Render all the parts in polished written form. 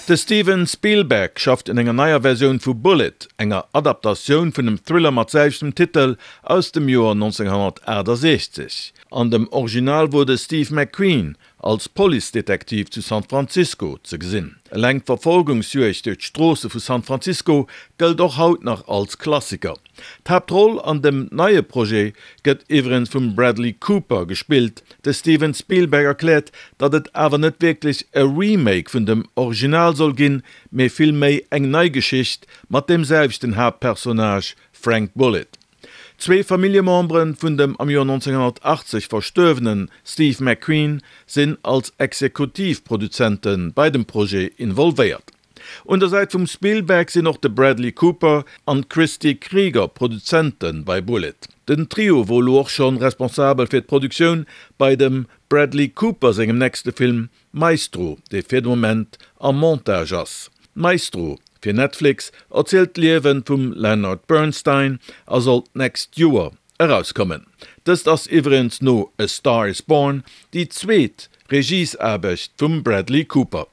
De Steven Spielberg schafft un enger neier Versioun vu Bullitt, enger Adaptatioun vun dem Thriller mat selwechtem Titel aus dem Joer 1968. An dem Original wor de Steve McQueen als Policedetektiv zu San Francisco ze gesinn. Eleng d'Verfolgungsjuegd duerch d'Stroosse vu San Francisco gëllt och haut nach als Klassiker. D'Haaptroll an dem neie Projet gëtt iwwregens vum Bradley Cooper gespillt. De Steven Spielberg erkläert, datt et awer net wierklech e Remake vun dem Original soll ginn, mee vill méi eng nei Geschicht mat deem selwechten Haaptpersonnage Frank Bullitt. Zwee Familljemembere vun dem am Joer 1980 verstuerwene Steve McQueen sinn als Exekutivproduzente bei dem Projet involvéiert. Un der Säit vum Spielberg sinn och de Bradley Cooper an d'Christy Krieger Produzente bei Bullitt. Den Trio wor elo och schonn responsabel fir d'Produktioun bei dem Bradley Cooper sengem nächste Film Maestro, dee fir de Moment am Montage ass. Maestro fir Netflix erzielt d'Liewe vum Leonard Bernstein a soll d'nächst Joer erauskommen. Dëst ass iwwregens no A Star Is Born déi zweet Regiesaarbecht vum Bradley Cooper.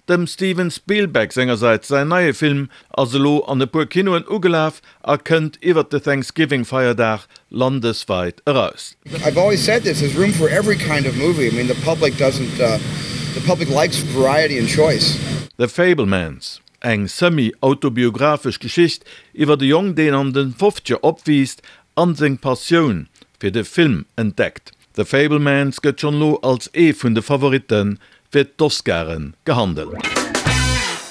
Dem Steven Spielberg sengersäits säin neie Film ass elo an e puer Kinoen ugelaf a kënnt iwwert de Thanksgiving-Feierdag landesweit eraus. I've always said this, there's room for every kind of movie, I mean the public doesn't, the public likes variety and choice. The Fabelmans, eng semi-autobiographesch Geschicht iwwert e Jong deen an de Fofzeger opwiisst an seng Passioun fir de Film entdeckt. The Fabelmans gëtt schonn elo als ee vun de Favoritte fir d'Oscaren gehandelt.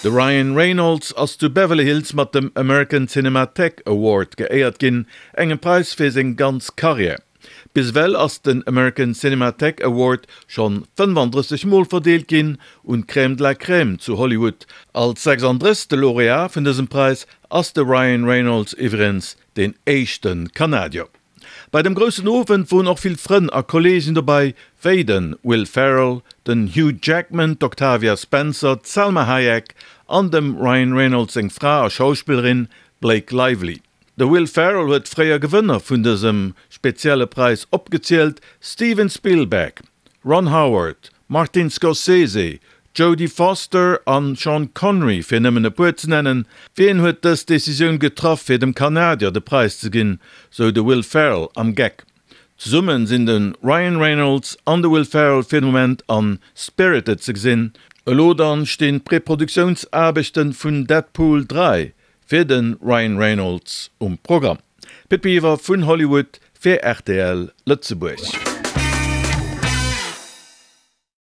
De Ryan Reynolds ass zu Beverly Hills mat dem American Cinematheque Award geéiert ginn, engem Präis fir seng ganz Karriär. Bis ewell ass den American Cinematheque Award schonn 35 Mol verdeelt ginn un d'Crème de la Crème zu Hollywood. Als 36. Laureat vun dësem Präis ass de Ryan Reynolds iwwregens deen éischte Kanadier. Bei dem groussen Owend woren och vill Frënn a Kollegen dobei, wéi den Will Ferrell, den Hugh Jackman, d'Octavia Spencer, d'Salma Hayek an dem Ryan Reynolds seng Fra a Schauspillerin Blake Lively. De Will Ferrell huet fréier Gewënner vun dësem spezielle Präis opgezielt, Steven Spielberg, Ron Howard, Martin Scorsese, Jodie Foster an Sean Connery, fir nëmmen e puer ze nennen. Wien huet dës Decisioun getraff fir dem Kanadier de Präis ze ginn, sou de Will Ferrell am Geck. Zesummen sinn de Ryan Reynolds an de Will Ferrell fir de Moment an Spirited ze gesinn. Elo dann stinn d'Präproduktiounsaarbechten vun Deadpool 3 fir de Ryan Reynolds um Programm. Pit Biwer vun Hollywood fir rtl Lëtzebuerg.